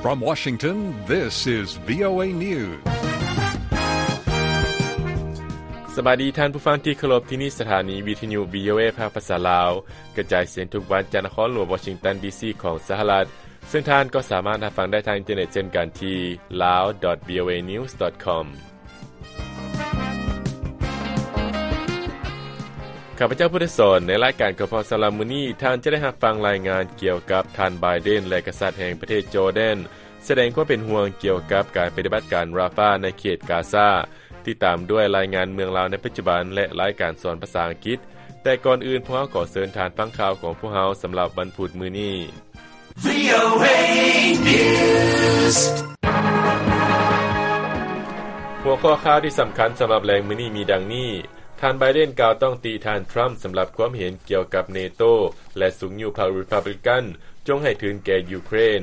From Washington, this is VOA News. ສະບາຍດີທ່ານຜູ້ຟັງທີ່ເຄົາລົບ, ທີ່ນີ້ສະຖານີວິທະຍຸ VOA ພາກພາສາລາວ, ກະຈາຍສຽງທຸກວັນຈາກນະຄອນຫຼວງວໍຊິງຕັນ ດີຊີ ຂອງສະຫະລັດ, ເຊິ່ງທ່ານກໍສາມາດຮັບຟັງໄດ້ທາງອິນເຕີເນັດເຊັ່ນກັນທີ່ lawvoanews.com. ຂ້າພະເຈົ້າພຸດທະສອນ, ໃນລາຍການຂອງພວກເຮົາສຳລັບມື້ນີ້, ທ່ານຈະໄດ້ຮັບຟັງລາຍງານກ່ຽວກັບທ່ານ Biden ແລະ ກະສັດແຫ່ງປະເທດຈໍແດນ ສະແດງຄວາມເປັນຫ່ວງກ່ຽວກັບການປະຕິບັດການ Rafah ໃນເຂດກາຊາ, ຕິດຕາມດ້ວຍລາຍງານເມືອງລາວໃນປັດຈຸບັນ ແລະ ລາຍການສອນພາສາອັງກິດ. ແຕ່ກ່ອນອື່ນ, ພວກເຮົາຂໍເຊີນທ່ານຟັງຂ່າວຂອງພວກເຮົາສຳລັບວັນພຸດມື້ນີ້. VOA News. ຫົວຂໍ້ຂ່າວທີ່ສຳຄັນສຳລັບແລງມື້ນີ້ມີດັ່ງນີ້: ທ່ານ Biden ກ່າວຕ້ອງຕິທ່ານ Trump ສຳລັບຄວາມເຫັນກ່ຽວກັບ NATO ແລະ ຊຸກຍູ້ພັກ Republican ຈົ່ງໃຫ້ທຶນແກ່ຢູເຄຣນ.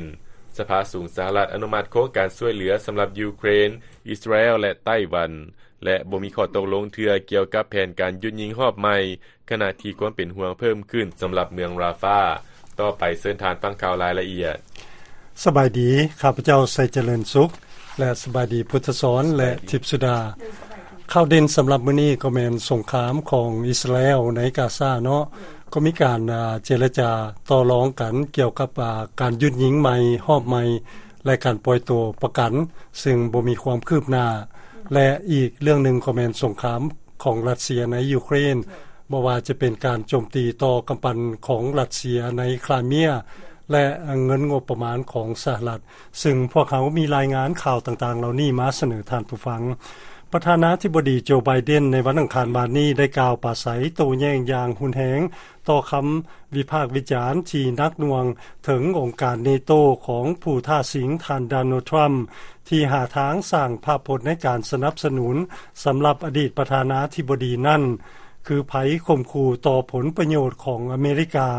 ສະພາສູງສະຫະລັດອະນຸມັດໂຄງການຊ່ວຍເຫຼືອສຳລັບຢູເຄຣນ, ອິດສະຣາແອລ ແລະ ໄຕ້ຫວັນ ແລະ ບໍ່ມີຂໍ້ຕົກລົງເທື່ອກ່ຽວກັບແຜນການຢຸດຍິງຮອບໃໝ່, ຂະນະທີ່ຄວາມເປັນຫ່ວງເພີ່ມຂຶ້ນສຳລັບເມືອງ Rafah. ຕໍ່ໄປເຊີນທ່ານຟັງຂ່າວລາຍລະອຽດ. ສະບາຍດີ, ຂ້າພະເຈົ້າ ໄຊຈະເລີນສຸກ ແລະ ສະບາຍດີ ພຸດທະສອນ ແລະ ທິບສຸດາ. ຂ່າວເດັ່ນສຳລັບມື້ນີ້ກໍແມ່ນສົງຄາມຂອງອິດສະຣາແອລໃນກາຊາເນາະ, ກໍມີການ ອາ ເຈລະຈາຕໍ່ລອງກັນກ່ຽວກັບ ອາ ການຢຸດຍິງໃໝ່ ຮອບໃໝ່ ແລະ ການປ່ອຍຕົວປະກັນ, ເຊິ່ງບໍ່ມີຄວາມຄືບໜ້າ ແລະ ອີກເລື່ອງໜຶ່ງກໍແມ່ນສົງຄາມຂອງຣັດເຊຍໃນຢູເຄຣນ, ບໍ່ວ່າຈະເປັນການໂຈມຕີຕໍ່ກຳປັ່ນຂອງຣັດເຊຍໃນຄຣາເມຍ ແລະ ເງິນງົບປະມານຂອງສະຫະລັດ, ເຊິ່ງພວກເຮົາມີລາຍງານຂ່າວຕ່າງໆເຫຼົ່ານີ້ມາສະເໜີທ່ານຜູ້ຟັງ. ປະທານາທິບໍດີ ໂຈ ໄບເດັນ ໃນວັນອັງຄານວານນີ້ໄດ້ກ່າວປາໄສໂຕ້ແຍ້ງຢ່າງຮຸນແຮງ ຕໍ່ຄຳວິພາກວິຈານທີ່ໜັກໜ່ວງເຖິງອົງການ NATO ຂອງຜູ້ທ້າຊິງທ່ານ ໂດນັລ ທຣຳ ທີ່ຫາທາງສ້າງພາບພົດໃນການສະໜັບສະໜູນສຳລັບອະດີດປະທານາທິບໍດີນັ້ນ ຄືໄພຂົ່ມຂູ່ຕໍ່ຜົນປະໂຫຍດຂອງອາເມລິກາ.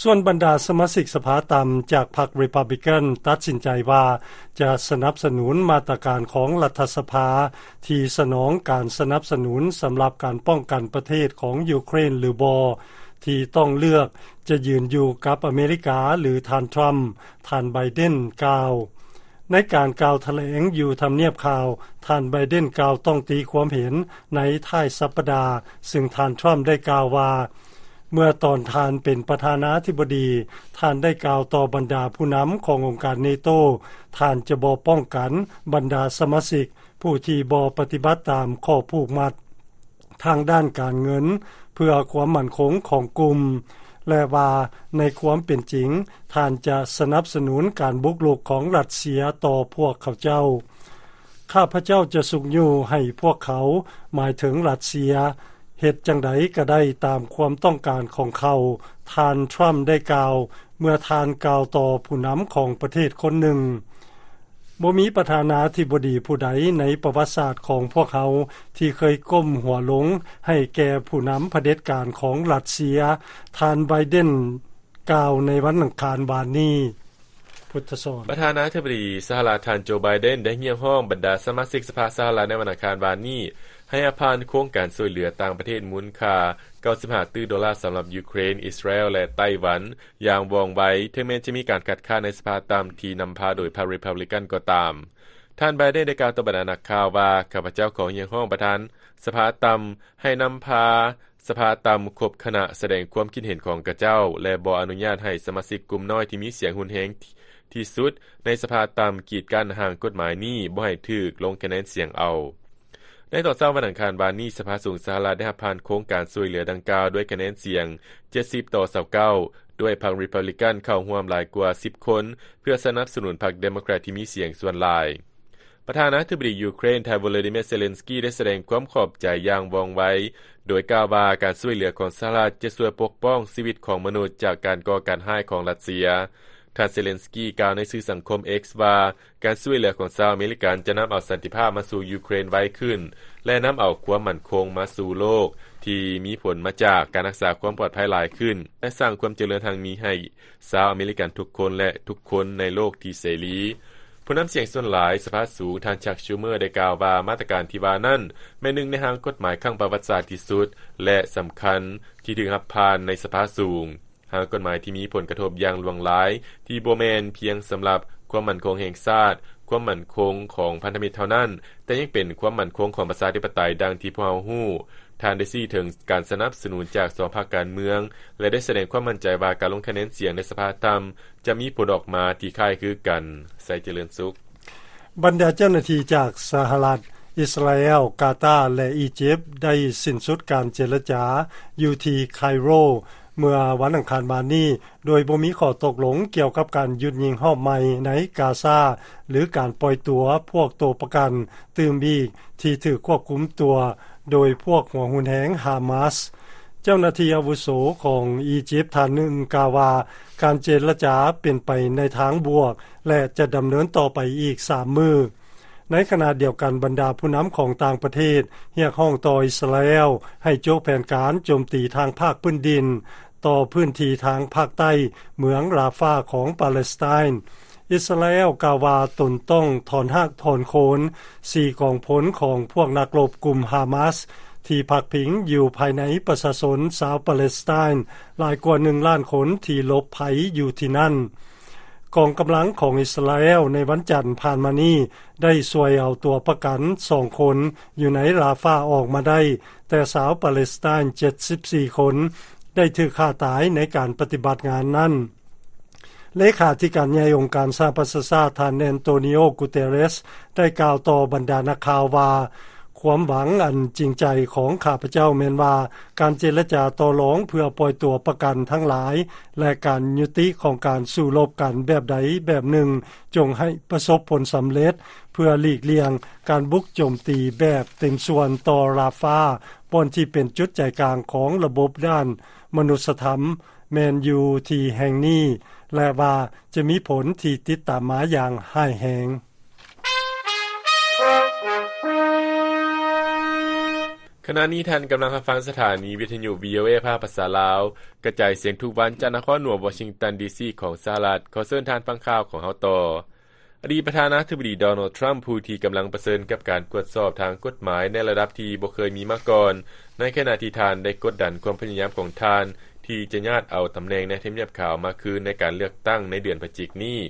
ສ່ວນບັນດາສະມາຊິກສະພາຕ່ຳຈາກພັກ Republican ຕັດສິນໃຈວ່າຈະສະໜັບສະໜູນມາດຕະການຂອງລັດຖະສະພາທີ່ສະໜອງການສະໜັບສະໜູນສຳລັບການປ້ອງກັນປະເທດຂອງຢູເຄຣນຫຼືບໍ່ ທີ່ຕ້ອງເລືອກຈະຢືນຢູ່ກັບອາເມລິກາ ຫຼື ທ່ານ Trump ທ່ານ Biden ກ່າວ. ໃນການກ່າວຖະແຫຼງຢູ່ທຳນຽບຂາວ, ທ່ານ Biden ກ່າວຕ້ອງຕີຄວາມເຫັນໃນທ້າຍສັບປະດາ, ເຊິ່ງທ່ານ Trump ໄດ້ກ່າວວ່າ ເມື່ອຕອນທ່ານເປັນປະທານາທິບໍດີ, ທ່ານໄດ້ກ່າວຕໍ່ບັນດາຜູ້ນຳຂອງອົງການ NATO ທ່ານຈະບໍ່ປ້ອງກັນບັນດາສະມາຊິກຜູ້ທີ່ບໍ່ປະຕິບັດຕາມຂໍ້ຜູກມັດທາງດ້ານການເງິນເພື່ອຄວາມໝັ້ນຄົງຂອງກຸ່ມ ແລະ ວ່າໃນຄວາມເປັນຈິງ, ທ່ານຈະສະໜັບສະໜູນການບຸກລຸກຂອງຣັດເຊຍຕໍ່ພວກເຂົາເຈົ້າ. ຂ້າພະເຈົ້າຈະຊຸກຍູ້ໃຫ້ພວກເຂົາ, ໝາຍເຖິງຣັດເຊຍ, ເຮັດຈັ່ງໃດກໍໄດ້ຕາມຄວາມຕ້ອງການຂອງເຂົາ, ທ່ານ Trump ໄດ້ກ່າວ ເມື່ອທ່ານກ່າວຕໍ່ຜູ້ນຳຂອງປະເທດຄົນໜຶ່ງ. ບໍ່ມີປະທານາທິບໍດີຜູ້ໃດໃນປະຫວັດສາດຂອງພວກເຮົາທີ່ເຄີຍກົ້ມຫົວລົງໃຫ້ແກ່ຜູ້ນຳຜະເດັດການຂອງຣັດເຊຍ, ທ່ານ Biden ກ່າວໃນວັນອັງຄານວານນີ້. ປະທານາທິບໍດີສະຫະລັດ ທ່ານ ໂຈ ໄບເດັນ ໄດ້ຮຽກຮ້ອງບັນດາສະມາຊິກສະພາສະຫະລັດໃນວັນອັງຄານວານນີ້ ໃຫ້ອະພານໂຄງການຊ່ວຍເຫຼືອຕ່າງປະເທດມູນຄ່າ ເກົ້າສິບຫ້າຕື້ໂດລາສຳລັບຢູເຄຣນ, ອິດສະຣາແອລ ແລະ ໄຕ້ຫວັນ ຢ່າງວ່ອງໄວ, ເຖິງແມ່ນຈະມີການຄັດຄ້ານໃນສະພາຕ່ຳທີ່ນຳພາໂດຍພັກ Republican ກໍຕາມ. ທ່ານ ໄບເດັນ ໄດ້ກ່າວຕໍ່ບັນດານັກຂ່າວວ່າ, ຂ້າພະເຈົ້າຂໍຮຽກຮ້ອງປະທານສະພາຕ່ຳໃຫ້ນຳພາ ສະພາຕ່ຳຄົບຄະນະສະແດງຄວາມຄິດເຫັນຂອງຂະເຈົ້າ ແລະ ບໍ່ອະນຸຍາດໃຫ້ສະມາຊິກກຸ່ມນ້ອຍທີ່ມີສຽງຮຸນແຮງທີ່ສຸດໃນສະພາຕ່ຳກີດກັ້ນຮ່າງກົດໝາຍນີ້ບໍ່ໃຫ້ຖືກລົງຄະແນນສຽງເອົາ. ໃນຕອນເຊົ້າວັນອັງຄານວານນີ້, ສະພາສູງສະຫະລັດໄດ້ຮັບຜ່ານໂຄງການຊ່ວຍເຫຼືອດັ່ງກ່າວດ້ວຍຄະແນນສຽງເຈັດສິບຕໍ່ຊາວເກົ້າ ດ້ວຍພັກ Republican ເຂົ້າຮ່ວມຫຼາຍກວ່າສິບຄົນ ເພື່ອສະໜັບສະໜູນພັກ Democrat ທີ່ມີສຽງສ່ວນຫຼາຍ. ປະທານາທິບໍດີຢູເຄຣນ ທ່ານ ໂວໂລດີເມຍ ເຊເລັນສກີ ໄດ້ສະແດງຄວາມຂອບໃຈຢ່າງວ່ອງໄວ ໂດຍກ່າວວ່າການຊ່ວຍເຫຼືອຂອງສະຫະລັດຈະຊ່ວຍປົກປ້ອງຊີວິດຂອງມະນຸດຈາກການກໍ່ການຮ້າຍຂອງຣັດເຊຍ. ທ່ານ ເຊເລັນສກີ ກ່າວໃນສື່ສັງຄົມ X ວ່າ ການຊ່ວຍເຫຼືອຂອງຊາວອາເມລິກັນຈະນຳເອົາສັນຕິພາບມາສູ່ຢູເຄຣນໄວຂຶ້ນ ແລະ ນຳເອົາຄວາມໝັ້ນຄົງມາສູ່ໂລກທີ່ມີຜົນມາຈາກການຮັກສາຄວາມປອດໄພຫຼາຍຂຶ້ນ ແລະ ສ້າງຄວາມຈະເລີນຮັ່ງມີໃຫ້ ຊາວອາເມລິກັນທຸກຄົນ ແລະ ທຸກຄົນໃນໂລກທີ່ເສລີ. ຜູ້ນຳສຽງສ່ວນຫຼາຍສະພາສູງ ທ່ານ ຊັກ ຊູເມີ ໄດ້ກ່າວວ່າ ມາດຕະການທີ່ວ່ານັ້ນ ແມ່ນໜຶ່ງໃນຮ່າງກົດໝາຍຄັ້ງປະຫວັດສາດທີ່ສຸດ ແລະ ສຳຄັນທີ່ຖືກຮັບຜ່ານໃນສະພາສູງ. ຮ່າງກົດໝາຍທີ່ມີຜົນກະທົບຢ່າງຫຼວງຫຼາຍ ທີ່ບໍ່ແມ່ນພຽງສຳລັບຄວາມໝັ້ນຄົງແຫ່ງຊາດ, ຄວາມໝັ້ນຄົງຂອງພັນທະມິດເທົ່ານັ້ນ, ແຕ່ຍັງເປັນຄວາມໝັ້ນຄົງຂອງປະຊາທິປະໄຕ ດັ່ງທີ່ພວກເຮົາຮູ້. ທ່ານໄດ້ຊີ້ເຖິງການສະໜັບສະໜູນຈາກສອງພັກການເມືອງ ແລະ ໄດ້ສະແດງຄວາມໝັ້ນໃຈວ່າການລົງຄະແນນສຽງໃນສະພາຕ່ຳຈະມີຜົນອອກມາທີ່ຄ້າຍຄືກັນ. ໄຊເຈຣິນສຸກ. ບັນດາເຈົ້າໜ້າທີ່ຈາກສະຫະລັດ, ອິດສະຣາແອລ, ກາຕາ ແລະ ອີຢິບ ໄດ້ສິ້ນສຸດການເຈລະຈາຢູ່ທີ່ໄຄໂຣ ເມື່ອວັນອັງຄານມານີ້ ໂດຍບໍ່ມີຂໍ້ຕົກລົງກ່ຽວກັບການຢຸດຍິງຮອບໃໝ່ໃນກາຊາ ຫຼື ການປ່ອຍຕົວພວກໂຕປະກັນຕື່ມອີກທີ່ຖືກຄວບຄຸມຕົວໂດຍພວກຫົວຮຸນແຮງຮາມາສ. ເຈົ້າໜ້າທີ່ອາວຸໂສຂອງອີຢິບທ່ານໜຶ່ງກ່າວວ່າ ການເຈລະຈາເປັນໄປໃນທາງບວກ ແລະ ຈະດຳເນີນຕໍ່ໄປອີກສາມມື້. ໃນຂະນະດຽວກັນ, ບັນດາຜູ້ນຳຂອງຕ່າງປະເທດຮຽກຮ້ອງຕໍ່ອິດສະຣາແອລໃຫ້ໂຈະແຜນການໂຈມຕີທາງພາກພື້ນດິນຕໍ່ພື້ນທີ່ທາງພາກໃຕ້ເມືອງຣາຟາຂອງປາເລສໄຕນ. ອິດສະຣາແອລກ່າວວ່າຕົນຕ້ອງຖອນຮາກຖອນໂຄນສີ່ກອງພົນຂອງພວກນັກລົບກຸ່ມຮາມາສ ທີ່ພັກພິງຢູ່ພາຍໃນປະຊາຊົນຊາວປາເລສໄຕນຫຼາຍກວ່າໜຶ່ງລ້ານຄົນທີ່ຫຼົບໄພຢູ່ທີ່ນັ້ນ. ກອງກຳລັງຂອງອິດສະຣາແອລໃນວັນຈັນຜ່ານມານີ້ໄດ້ຊ່ວຍເອົາຕົວປະກັນສອງຄົນຢູ່ໃນຣາຟາອອກມາໄດ້, ແຕ່ຊາວປາເລສໄຕນເຈັດສິບສີ່ຄົນໄດ້ຖືກຂ້າຕາຍໃນການປະຕິບັດງານນັ້ນ. ເລຂາທິການໃຫຍ່ອົງການສະຫະປະຊາຊາດ ທ່ານ ແອນໂຕນິໂອ ກູເຕເຣສ ໄດ້ກ່າວຕໍ່ບັນດານັກຂ່າວວ່າ ຄວາມຫວັງອັນຈິງໃຈຂອງຂ້າພະເຈົ້າແມ່ນວ່າ ການເຈລະຈາຕໍ່ລອງເພື່ອປ່ອຍຕົວປະກັນທັງຫຼາຍ ແລະ ການຍຸຕິຂອງການສູ້ລົບກັນແບບໃດແບບໜຶ່ງ ຈົ່ງໃຫ້ປະສົບຜົນສຳເລັດ ເພື່ອຫຼີກລ່ຽງການບຸກໂຈມຕີແບບເຕັມສ່ວນຕໍ່ຣາຟາ ບ່ອນທີ່ເປັນຈຸດໃຈກາງຂອງລະບົບດ້ານມະນຸດສະທຳ ແມ່ນຢູ່ທີ່ແຫ່ງນີ້ ແລະ ວ່າຈະມີຜົນທີ່ຕິດຕາມມາຢ່າງຮ້າຍແຮງ. ຂະນະນີ້ທ່ານກຳລັງຮັບຟັງສະຖານີວິທະຍຸ ວີໂອເອ ພາກພາສາລາວ ກະຈາຍສຽງທຸກວັນຈາກນະຄອນຫຼວງວໍຊິງຕັນ ດີຊີ ຂອງສະຫະລັດ. ຂໍເຊີນທ່ານຟັງຂ່າວຂອງເຮົາຕໍ່. ອະດີດປະທານາທິບໍດີ ໂດນັລ ທຣຳ ຜູ້ທີ່ກຳລັງປະເຊີນກັບການກວດສອບທາງກົດໝາຍໃນລະດັບທີ່ບໍ່ເຄີຍມີມາກ່ອນ, ໃນຂະນະທີ່ທ່ານໄດ້ກົດດັນຄວາມພະຍາຍາມຂອງທ່ານທີ່ຈະຍາດເອົາຕຳແໜ່ງໃນທຳນຽບຂາວມາຄືນໃນການເລືອກຕັ້ງໃນເດືອນພະຈິກນີ້,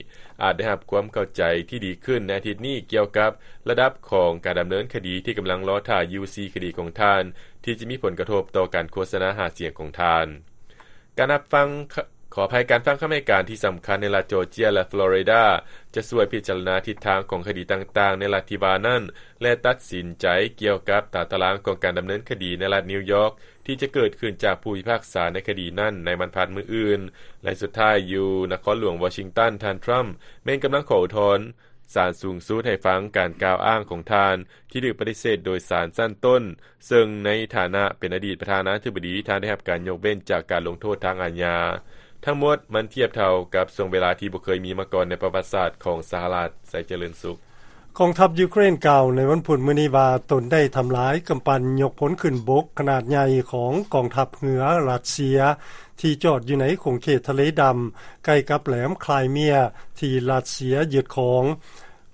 ອາດໄດ້ຮັບຄວາມເຂົ້າໃຈທີ່ດີຂຶ້ນໃນອາທິດນີ້ກ່ຽວກັບລະດັບຂອງການດຳເນີນຄະດີທີ່ກຳລັງລໍຖ້າຢູ່ສີ່ຄະດີຂອງທ່ານ ທີ່ຈະມີຜົນກະທົບຕໍ່ການໂຄສະນາຫາສຽງຂອງທ່ານ. ການຮັບຟັງ ຂໍອະໄພ, ການຟັງຄຳໃຫ້ການທີ່ສຳຄັນໃນລັດຈໍເຈຍ ແລະ ຟລໍຣິດາ ຈະຊ່ວຍພິຈາລະນາທິດທາງຂອງຄະດີຕ່າງໆໃນລັດທີ່ວ່ານັ້ນ ແລະ ຕັດສິນໃຈກ່ຽວກັບຕາຕະລາງຂອງການດຳເນີນຄະດີໃນລັດນິວຢອກ ທີ່ຈະເກີດຂຶ້ນຈາກຜູ້ພິພາກສາໃນຄະດີນັ້ນໃນວັນພັດມື້ອື່ນ. ແລະ ສຸດທ້າຍຢູ່ນະຄອນຫຼວງວໍຊິງຕັນ, ທ່ານ ທຣຳ ແມ່ນກຳລັງຂໍອຸທອນສານສູງສຸດໃຫ້ຟັງການກ່າວອ້າງຂອງທ່ານ ທີ່ຖືກປະຕິເສດໂດຍສານຊັ້ນຕົ້ນ, ເຊິ່ງໃນຖານະເປັນອະດີດປະທານາທິບໍດີ, ທ່ານໄດ້ຮັບການຍົກເວັ້ນຈາກການລົງໂທດທາງອາຍາ. ທັງໝົດມັນທຽບເທົ່າກັບຊ່ວງເວລາທີ່ບໍ່ເຄີຍມີມາກ່ອນໃນປະຫວັດສາດຂອງສະຫະລັດ. ໄຊເຈຣິນສຸກ. ກອງທັບຢູເຄຣນກ່າວໃນວັນພຸດມື້ນີ້ວ່າ ຕົນໄດ້ທຳລາຍກຳປັ່ນຍົກພົນຂຶ້ນບົກຂະໜາດໃຫຍ່ຂອງກອງທັບເຮືອຣັດເຊຍ ທີ່ຈອດຢູ່ໃນຂົງເຂດທະເລດຳ ໃກ້ກັບແຫຼມຄຣາຍເມຍ ທີ່ຣັດເຊຍຍຶດຄອງ.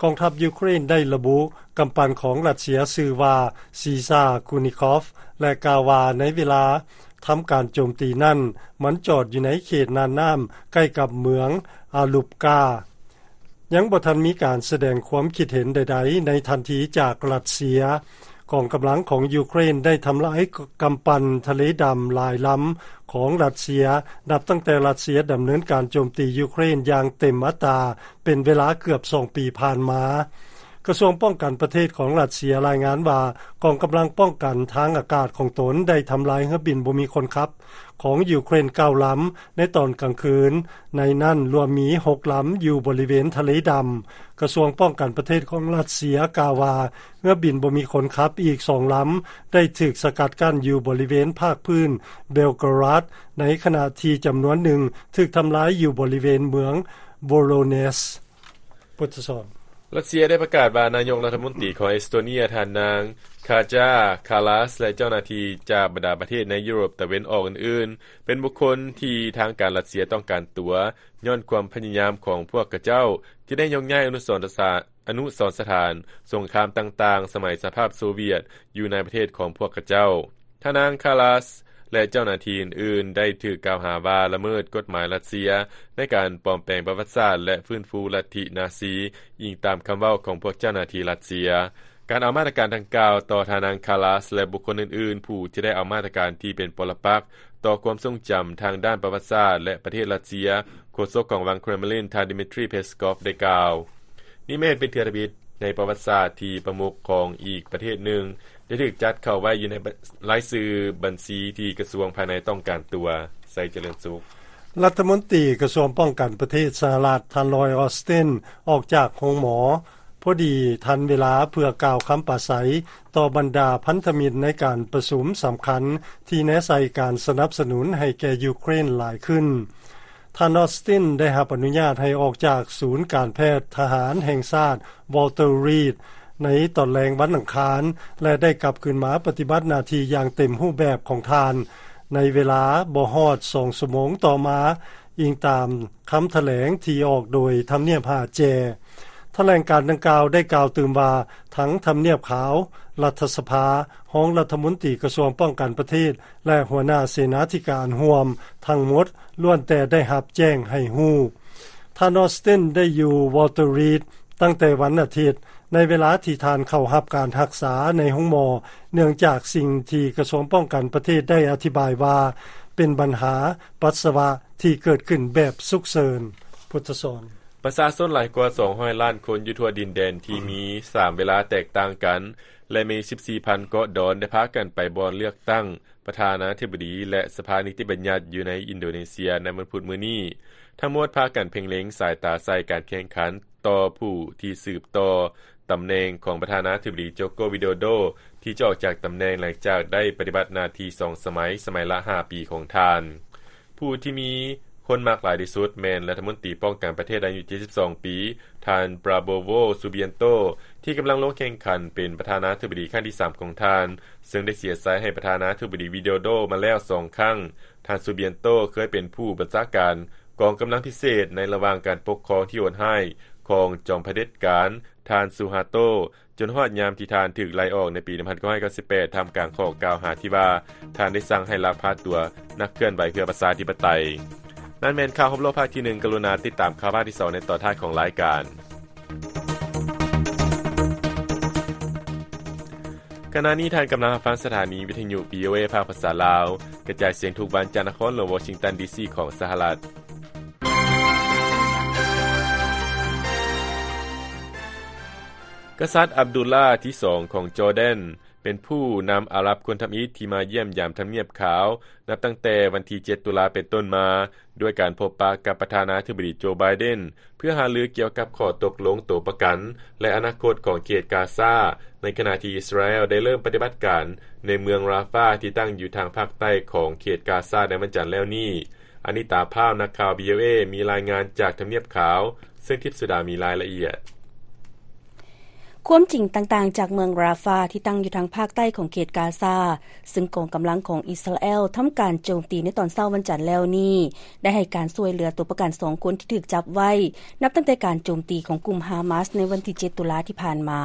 ກອງທັບຢູເຄຣນໄດ້ລະບຸກຳປັ່ນຂອງຣັດເຊຍຊື່ວ່າ ຊີຊາ ຄູນິຄອຟ ແລະ ກ່າວວ່າໃນເວລາທຳການໂຈມຕີນັ້ນ ມັນຈອດຢູ່ໃນເຂດນ່ານນ້ຳໃກ້ກັບເມືອງອາລຸບກາ. ຍັງບໍ່ທັນມີການສະແດງຄວາມຄິດເຫັນໃດໆໃນທັນທີຈາກຣັດເຊຍ. ກອງກຳລັງຂອງຢູເຄຣນໄດ້ທຳລາຍກຳປັ່ນທະເລດຳຫຼາຍລຳຂອງຣັດເຊຍ ນັບຕັ້ງແຕ່ຣັດເຊຍດຳເນີນການໂຈມຕີຢູເຄຣນຢ່າງເຕັມອັດຕາ ເປັນເວລາເກືອບສອງປີຜ່ານມາ. ກະຊວງປ້ອງກັນປະເທດຂອງຣັດເຊຍລາຍງານວ່າ ກອງກຳລັງປ້ອງກັນທາງອາກາດຂອງຕົນໄດ້ທຳລາຍເຮືອບິນບໍ່ມີຄົນຂັບຂອງຢູເຄຣນເກົ້າລຳໃນຕອນກາງຄືນ, ໃນນັ້ນລວມມີຫົກລຳຢູ່ບໍລິເວນທະເລດຳ. ກະຊວງປ້ອງກັນປະເທດຂອງຣັດເຊຍກ່າວວ່າ ເຮືອບິນບໍ່ມີຄົນຂັບອີກສອງລຳໄດ້ຖືກສະກັດກັ້ນຢູ່ບໍລິເວນພາກພື້ນເບລກຣາດ, ໃນຂະນະທີ່ຈຳນວນໜຶ່ງຖືກທຳລາຍຢູ່ບໍລິເວນເມືອງໂບໂລເນສ. ພຸດທະສອນ. ຣັດເຊຍໄດ້ປະກາດວ່າ ນາຍົກລັດຖະມົນຕີຂອງເອສໂຕເນຍ ທ່ານນາງ ຄາຈາ ຄາລາສ ແລະ ເຈົ້າໜ້າທີ່ຈາກບັນດາປະເທດໃນຢູໂຣບຕາເວັນອອກອື່ນໆ ເປັນບຸກຄົນທີ່ທາງການຣັດເຊຍຕ້ອງການຕົວ ຍ້ອນຄວາມພະຍາຍາມຂອງພວກຂະເຈົ້າທີ່ໄດ້ຍົກຍ້າຍອະນຸສອນສະຖານ ອະນຸສອນສະຖານສົງຄາມຕ່າງໆ ສະໄໝສະຫະພາບໂຊວຽດ ຢູ່ໃນປະເທດຂອງພວກຂະເຈົ້າ. ທ່ານນາງ ຄາລາສ ແລະ ເຈົ້າໜ້າທີ່ອື່ນໆ ໄດ້ຖືກກ່າວຫາວ່າລະເມີດກົດໝາຍຣັດເຊຍ ໃນການປອມແປງປະຫວັດສາດ ແລະ ຟື້ນຟູລັດທິນາຊີ, ອີງຕາມຄຳເວົ້າຂອງພວກເຈົ້າໜ້າທີ່ຣັດເຊຍ. ການເອົາມາດຕະການດັ່ງກ່າວຕໍ່ທ່ານນາງ Kallas ແລະ ບຸກຄົນອື່ນໆ ຜູ້ທີ່ໄດ້ເອົາມາດຕະການທີ່ເປັນປໍລະປັກຕໍ່ຄວາມຊົງຈຳທາງດ້ານປະຫວັດສາດ ແລະ ປະເທດຣັດເຊຍ, ໂຄສົກຂອງວັງ Kremlin ທ່ານ Dmitry Peskov ໄດ້ກ່າວ. ນີ້ແມ່ນເປັນເທື່ອທຳອິດໃນປະຫວັດສາດທີ່ປະມຸກຂອງອີກປະເທດໜຶ່ງ ໄດ້ຖືກຈັດເຂົ້າໄວ້ຢູ່ໃນລາຍຊື່ບັນຊີທີ່ກະຊວງພາຍໃນຕ້ອງການຕົວ. ໄຊຈະເລີນສຸກ. ລັດຖະມົນຕີກະຊວງປ້ອງກັນປະເທດສະຫະລັດ ທ່ານ Lloyd Austin ອອກຈາກໂຮງໝໍ ພໍດີທັນເວລາເພື່ອກ່າວຄຳປາໄສຕໍ່ບັນດາພັນທະມິດໃນການປະຊຸມສຳຄັນທີ່ແນໃສ່ການສະໜັບສະໜູນໃຫ້ແກ່ຢູເຄຣນຫຼາຍຂຶ້ນ. ທ່ານ Austin ໄດ້ຮັບອະນຸຍາດໃຫ້ອອກຈາກສູນການແພດທະຫານແຫ່ງຊາດ Walter Reed ໃນຕອນແລງວັນອັງຄານ ແລະ ໄດ້ກັບຄືນມາປະຕິບັດໜ້າທີ່ຢ່າງເຕັມຮູບແບບຂອງທ່ານ ໃນເວລາບໍ່ຮອດສອງຊົ່ວໂມງຕໍ່ມາ, ອີງຕາມຄຳຖະແຫຼງທີ່ອອກໂດຍທຳນຽບຫາແຈ. ຖະແຫຼງການດັ່ງກ່າວໄດ້ກ່າວຕື່ມວ່າ ທັງທຳນຽບຂາວ, ລັດຖະສະພາ, ຮອງລັດຖະມົນຕີກະຊວງປ້ອງກັນປະເທດ ແລະ ຫົວໜ້າເສນາທິການຮ່ວມທັງໝົດ ລ້ວນແຕ່ໄດ້ຮັບແຈ້ງໃຫ້ຮູ້. ທ່ານ Austin ໄດ້ຢູ່ Walter Reed ຕັ້ງແຕ່ວັນອາທິດ ໃນເວລາທີ່ທ່ານເຂົ້າຮັບການຮັກສາໃນໂຮງໝໍ, ເນື່ອງຈາກສິ່ງທີ່ກະຊວງປ້ອງກັນປະເທດໄດ້ອະທິບາຍວ່າ ເປັນບັນຫາປັດສະວະທີ່ເກີດຂຶ້ນແບບສຸກເສີນ. ພຸດທະສອນ. ປະຊາຊົນຫຼາຍກວ່າສອງຮ້ອຍລ້ານຄົນຢູ່ທົ່ວດິນແດນທີ່ມີສາມເວລາແຕກຕ່າງກັນ ແລະ ມີສິບສີ່ພັນເກາະດອນ ໄດ້ພາກັນໄປບ່ອນເລືອກຕັ້ງປະທານາທິບໍດີ ແລະ ສະພານິຕິບັນຍັດຢູ່ໃນອິນໂດເນເຊຍໃນວັນພຸດມື້ນີ້. ທັງໝົດພາກັນເພັງເລັງສາຍຕາໃສ່ການແຂ່ງຂັນຕໍ່ຜູ້ທີ່ສືບຕໍ່ຕຳແໜ່ງຂອງປະທານາທິບໍດີ ໂຈໂກ ວິໂດໂດ ທີ່ຈະອອກຈາກຕຳແໜ່ງຫຼັງຈາກໄດ້ປະຕິບັດໜ້າທີ່ສອງສະໄໝ, ສະໄໝລະຫ້າປີຂອງທ່ານ. ຜູ້ທີ່ມີຄົນມັກຫຼາຍທີ່ສຸດແມ່ນລັດຖະມົນຕີປ້ອງກັນປະເທດອາຍຸເຈັດສິບສອງປີ ທ່ານ ປຣາໂບໂວ ຊູບຽນໂຕ ທີ່ກຳລັງລົງແຂ່ງຂັນເປັນປະທານາທິບໍດີຄັ້ງທີສາມຂອງທ່ານ, ເຊິ່ງໄດ້ເສຍໄຊໃຫ້ປະທານາທິບໍດີ ວິໂດໂດ ມາແລ້ວສອງຄັ້ງ. ທ່ານ ຊູບຽນໂຕ ເຄີຍເປັນຜູ້ບັນຊາການກອງກຳລັງພິເສດໃນລະຫວ່າງການປົກຄອງທີ່ໂຫດຮ້າຍຂອງຈອມຜະເດັດການ ທ່ານ ຊູຮາໂຕ ຈົນຮອດຍາມທີ່ທ່ານຖືກໄລ່ອອກໃນປີໜຶ່ງພັນເກົ້າຮ້ອຍເກົ້າສິບແປດ ທ່າມກາງຂໍ້ກ່າວຫາທີ່ວ່າ ທ່ານໄດ້ສັ່ງໃຫ້ລັກພາຕົວນັກເຄື່ອນໄຫວເພື່ອປະຊາທິປະໄຕ. ນັ້ນແມ່ນຂ່າວຮອບໂລກພາກທີໜຶ່ງ. ກະລຸນາຕິດຕາມຂ່າວພາກທີສອງໃນຕອນທ້າຍຂອງລາຍການ. ຂະນະນີ້ທ່ານກຳລັງຮັບຟັງສະຖານີວິທະຍຸ ວີໂອເອ ພາກພາສາລາວ, ກະຈາຍສຽງທຸກວັນຈາກນະຄອນຫຼວງວໍຊິງຕັນ ດີຊີ ຂອງສະຫະລັດ. ກະສັດ ອັບດຸລລາ ທີສອງ ຂອງຈໍແດນ ເປັນຜູ້ນຳອາຣັບຄົນທຳອິດທີ່ມາຢ້ຽມຢາມທຳນຽບຂາວ ນັບຕັ້ງແຕ່ວັນທີເຈັດ ຕຸລາ ເປັນຕົ້ນມາ, ດ້ວຍການພົບປະກັບປະທານາທິບໍດີ ໂຈ ໄບເດັນ ເພື່ອຫາລືກ່ຽວກັບຂໍ້ຕົກລົງໂຕປະກັນ ແລະ ອະນາຄົດຂອງເຂດກາຊາ, ໃນຂະນະທີ່ອິດສະຣາແອລໄດ້ເລີ່ມປະຕິບັດການໃນເມືອງຣາຟາ ທີ່ຕັ້ງຢູ່ທາງພາກໃຕ້ຂອງເຂດກາຊາໃນວັນຈັນແລ້ວນີ້. ອານິຕາ ພາວ ນັກຂ່າວ ວີໂອເອ ມີລາຍງານຈາກທຳນຽບຂາວ, ເຊິ່ງທິບສຸດາມີລາຍລະອຽດ. ຄວາມຈິງຕ່າງໆຈາກເມືອງຣາຟາ ທີ່ຕັ້ງຢູ່ທາງພາກໃຕ້ຂອງເຂດກາຊາ, ຊຶ່ງກອງກຳລັງຂອງອິດສະຣາແອລທຳການໂຈມຕີໃນຕອນເຊົ້າວັນຈັນແລ້ວນີ້, ໄດ້ໃຫ້ການຊ່ວຍເຫຼືອຕົວປະກັນສອງຄົນທີ່ຖືກຈັບໄວ້ ນັບຕັ້ງແຕ່ການໂຈມຕີຂອງກຸ່ມຮາມາສໃນວັນທີເຈັດ ຕຸລາທີ່ຜ່ານມາ.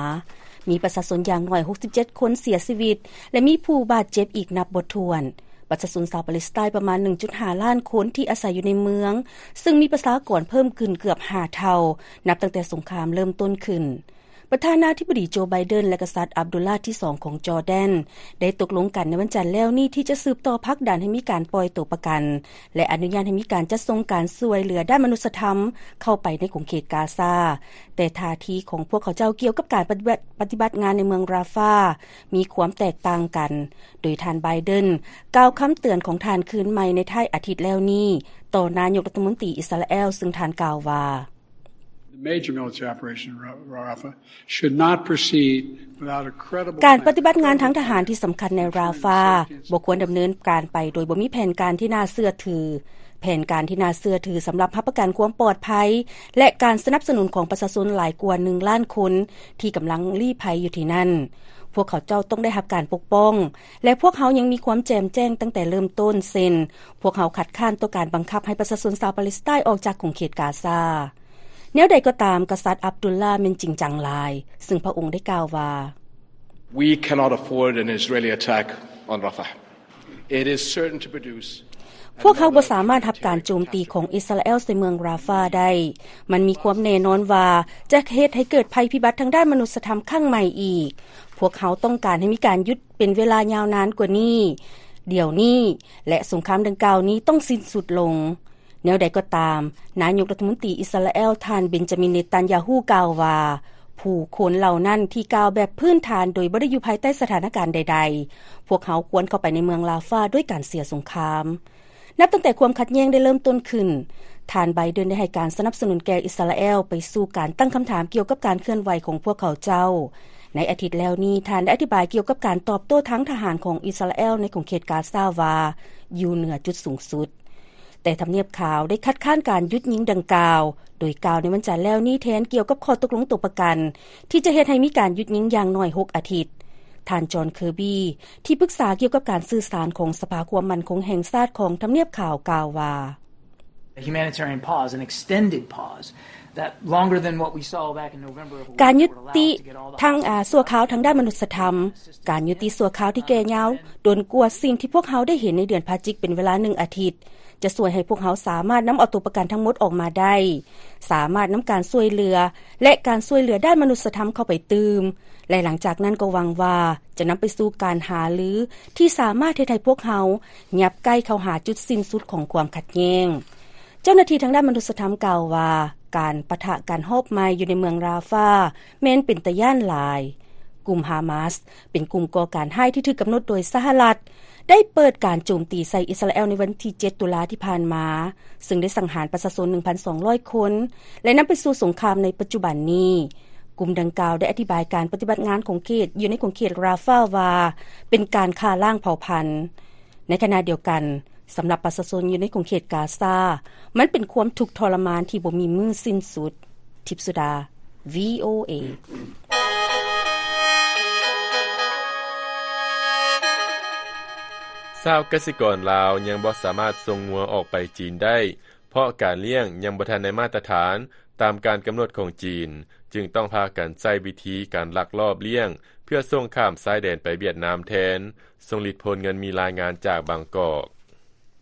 ມີປະຊາຊົນຢ່າງໜ້ອຍຫົກສິບເຈັດຄົນເສຍຊີວິດ ແລະ ມີຜູ້ບາດເຈັບອີກນັບບໍ່ຖ້ວນ. ປະຊາຊົນຊາວປາເລສໄຕປະມານໜຶ່ງຈຸດຫ້າລ້ານຄົນທີ່ອາໄສຢູ່ໃນເມືອງ, ຊຶ່ງມີປະຊາກອນເພີ່ມຂຶ້ນເກືອບຫ້າເທົ່າ ນັບຕັ້ງແຕ່ສົງຄາມເລີ່ມຕົ້ນຂຶ້ນ. ປະທານາທິບໍດີໂຈ ໄບເດັນ ແລະ ກະສັດ ອັບດຸລລາ ທີສອງ ຂອງຈໍແດນ ໄດ້ຕົກລົງກັນໃນວັນຈັນແລ້ວນີ້ ທີ່ຈະສືບຕໍ່ຜັກດັນໃຫ້ມີການປ່ອຍຕົວປະກັນ ແລະ ອະນຸຍາດໃຫ້ມີການຈັດສົ່ງການຊ່ວຍເຫຼືອດ້ານມະນຸດສະທຳເຂົ້າໄປໃນຂົງເຂດກາຊາ, ແຕ່ທ່າທີຂອງພວກເຂົາເຈົ້າກ່ຽວກັບການປະຕິບັດ, ປະຕິບັດງານໃນເມືອງຣາຟາ ມີຄວາມແຕກຕ່າງກັນ, ໂດຍທ່ານ ໄບເດັນ ກ່າວຄຳເຕືອນຂອງທ່ານຄືນໃໝ່ໃນທ້າຍອາທິດແລ້ວນີ້ ຕໍ່ນາຍົກລັດຖະມົນຕີອິດສະຣາແອລ, ຊຶ່ງທ່ານກ່າວວ່າ The major military operation in Ra-, Rafah should not proceed without a credible ການປະຕິບັດງານທາງທະຫານທີ່ສຳຄັນໃນຣາຟາ ບໍ່ຄວນດຳເນີນການໄປໂດຍບໍ່ມີແຜນການທີ່ໜ້າເຊື່ອຖື. ແຜນການທີ່ໜ້າເຊື່ອຖືສຳລັບຮັບປະກັນຄວາມປອດໄພ ແລະ ການສະໜັບສະໜູນຂອງປະຊາຊົນຫຼາຍກວ່າໜຶ່ງລ້ານຄົນທີ່ກຳລັງລີ້ໄພຢູ່ທີ່ນັ້ນ. ພວກເຂົາເຈົ້າຕ້ອງໄດ້ຮັບການປົກປ້ອງ ແລະ ພວກເຮົາຍັງມີຄວາມແຈ່ມແຈ້ງຕັ້ງແຕ່ເລີ່ມຕົ້ນ, ເຊັ່ນ, ພວກເຮົາຄັດຄ້ານຕໍ່ການບັງຄັບໃຫ້ປະຊາຊົນຊາວປາເລສໄຕອອກຈາກຂົງເຂດກາຊາ. ແນວໃດກໍຕາມ, ກະສັດ ອັບດຸລລາ ແມ່ນຈິງຈັງຫຼາຍ, ຊຶ່ງພະອົງໄດ້ກ່າວວ່າ, We cannot afford an Israeli attack on Rafah. It is certain to produce ພວກເຮົາບໍ່ສາມາດຮັບການໂຈມຕີຂອງອິສຣາແອລໃສ່ເມືອງຣາຟາໄດ້. ມັນມີຄວາມແນ່ນອນວ່າຈະເຮັດໃຫ້ເກີດໄພພິບັດທາງດ້ານມະນຸດສະທຳຄັ້ງໃໝ່ອີກ. ພວກເຮົາຕ້ອງການໃຫ້ມີການຢຸດເປັນເວລາຍາວນານກວ່ານີ້, ດຽວນີ້, ແລະ ສົງຄາມດັ່ງກ່າວນີ້ຕ້ອງສິ້ນສຸດລົງ. ແນວໃດກໍຕາມ, ນາຍົກລັດຖະມົນຕີອິສຣາແອລ ທ່ານ ເບັນຈາມິນ ເນຕັນຢາຮູ້ ກ່າວວ່າ, ຜູ້ຄົນເຫຼົ່ານັ້ນທີ່ກ່າວແບບພື້ນຖານໂດຍບໍ່ໄດ້ຢູ່ພາຍໃຕ້ສະຖານະການໃດໆ, ພວກເຮົາຄວນເຂົ້າໄປໃນເມືອງຣາຟາດ້ວຍການເສຍສົງຄາມ. ນັບຕັ້ງແຕ່ຄວາມຂັດແຍ່ງໄດ້ເລີ່ມຕົ້ນຂຶ້ນ, ທ່ານ ໄບເດັນ ໄດ້ໃຫ້ການສະໜັບສະໜູນແກ່ອິສຣາແອລໄປສູ່ການຕັ້ງຄຳຖາມກ່ຽວກັບການເຄື່ອນໄຫວຂອງພວກເຂົາເຈົ້າ. ໃນອາທິດແລ້ວນີ້, ທ່ານໄດ້ອະທິບາຍກ່ຽວກັບການຕອບໂຕ້ທາງທະຫານຂອງອິສຣາແອລໃນຂົງເຂດກາຊາວ່າ ຢູ່ເໜືອຈຸດສູງສຸດ. ແຕ່ທຳນຽບຂາວໄດ້ຄັດຄ້ານການຢຸດຍິງດັ່ງກ່າວ, ໂດຍກ່າວໃນວັນຈັນແລ້ວນີ້ແທນກ່ຽວກັບຂໍ້ຕົກລົງຕົວປະກັນ ທີ່ຈະເຮັດໃຫ້ມີການຢຸດຍິງຢ່າງໜ້ອຍຫົກອາທິດ. ທ່ານ ຈອນ ເຄີບີ ທີ່ປຶກສາກ່ຽວກັບການສື່ສານຂອງສະພາຄວາມໝັ້ນຄົງແຫ່ງຊາດຂອງທຳນຽບຂາວກ່າວວ່າ The humanitarian pause, an extended pause, that longer than what we saw back in November of ການຍຸຕິທາງ ອ່າ ຊົ່ວຄາວທາງດ້ານມະນຸດສະທຳ, ການຍຸຕິຊົ່ວຄາວທີ່ແກ່ຍາວ ດົນກວ່າສິ່ງທີ່ພວກເຮົາໄດ້ເຫັນໃນເດືອນພະຈິກເປັນເວລາໜຶ່ງອາທິດ ຈະຊ່ວຍໃຫ້ພວກເຮົາສາມາດນຳເອົາຕົວປະກັນທັງໝົດອອກມາໄດ້, ສາມາດນຳການຊ່ວຍເຫຼືອ ແລະ ການຊ່ວຍເຫຼືອດ້ານມະນຸດສະທຳເຂົ້າໄປຕື່ມ, ແລະ ຫຼັງຈາກນັ້ນກໍຫວັງວ່າຈະນຳໄປສູ່ການຫາລືທີ່ສາມາດເຮັດໃຫ້ພວກເຮົາຫຍັບໃກ້ເຂົ້າຫາຈຸດສິ້ນສຸດຂອງຄວາມຂັດແຍ່ງ. ເຈົ້າໜ້າທີ່ທາງດ້ານມະນຸດສະທຳກ່າວວ່າ ການປະທະກັນຮອບໃໝ່ຢູ່ໃນເມືອງຣາຟາແມ່ນເປັນຕາຢ້ານຫຼາຍ. ກຸ່ມຮາມາສ ເປັນກຸ່ມກໍ່ການຮ້າຍທີ່ຖືກກຳນົດໂດຍສະຫະລັດ ໄດ້ເປີດການໂຈມຕີໃສ່ອິດສະຣາແອລໃນວັນທີເຈັດ ຕຸລາທີ່ຜ່ານມາ, ເຊິ່ງໄດ້ສັງຫານປະຊາຊົນ ໜຶ່ງພັນສອງຮ້ອຍຄົນ ແລະ ນຳໄປສູ່ສົງຄາມໃນປັດຈຸບັນນີ້. ກຸ່ມດັ່ງກ່າວໄດ້ອະທິບາຍການປະຕິບັດງານຂົງເຂດ ຢູ່ໃນຂົງເຂດຣາຟາວ່າ ເປັນການຂ້າລ້າງເຜົ່າພັນ. ໃນຂະນະດຽວກັນ, ສຳລັບປະຊາຊົນຢູ່ໃນຂົງເຂດກາຊາ, ມັນເປັນຄວາມທຸກທໍລະມານທີ່ບໍ່ມີມື້ສິ້ນສຸດ. ທິບສຸດາ ວີໂອເອ. ຊາວກະສິກອນລາວຍັງບໍ່ສາມາດສົ່ງງົວອອກໄປຈີນໄດ້ ເພາະການລ້ຽງຍັງບໍ່ທັນໄດ້ມາດຕະຖານຕາມການກຳນົດຂອງຈີນ, ຈຶ່ງຕ້ອງພາກັນໃຊ້ວິທີການລັກລອບລ້ຽງ ເພື່ອສົ່ງຂ້າມຊາຍແດນໄປຫວຽດນາມແທນ. ຊົງລິດ ໂພນເງິນ ມີລາຍງານຈາກບາງກອກ.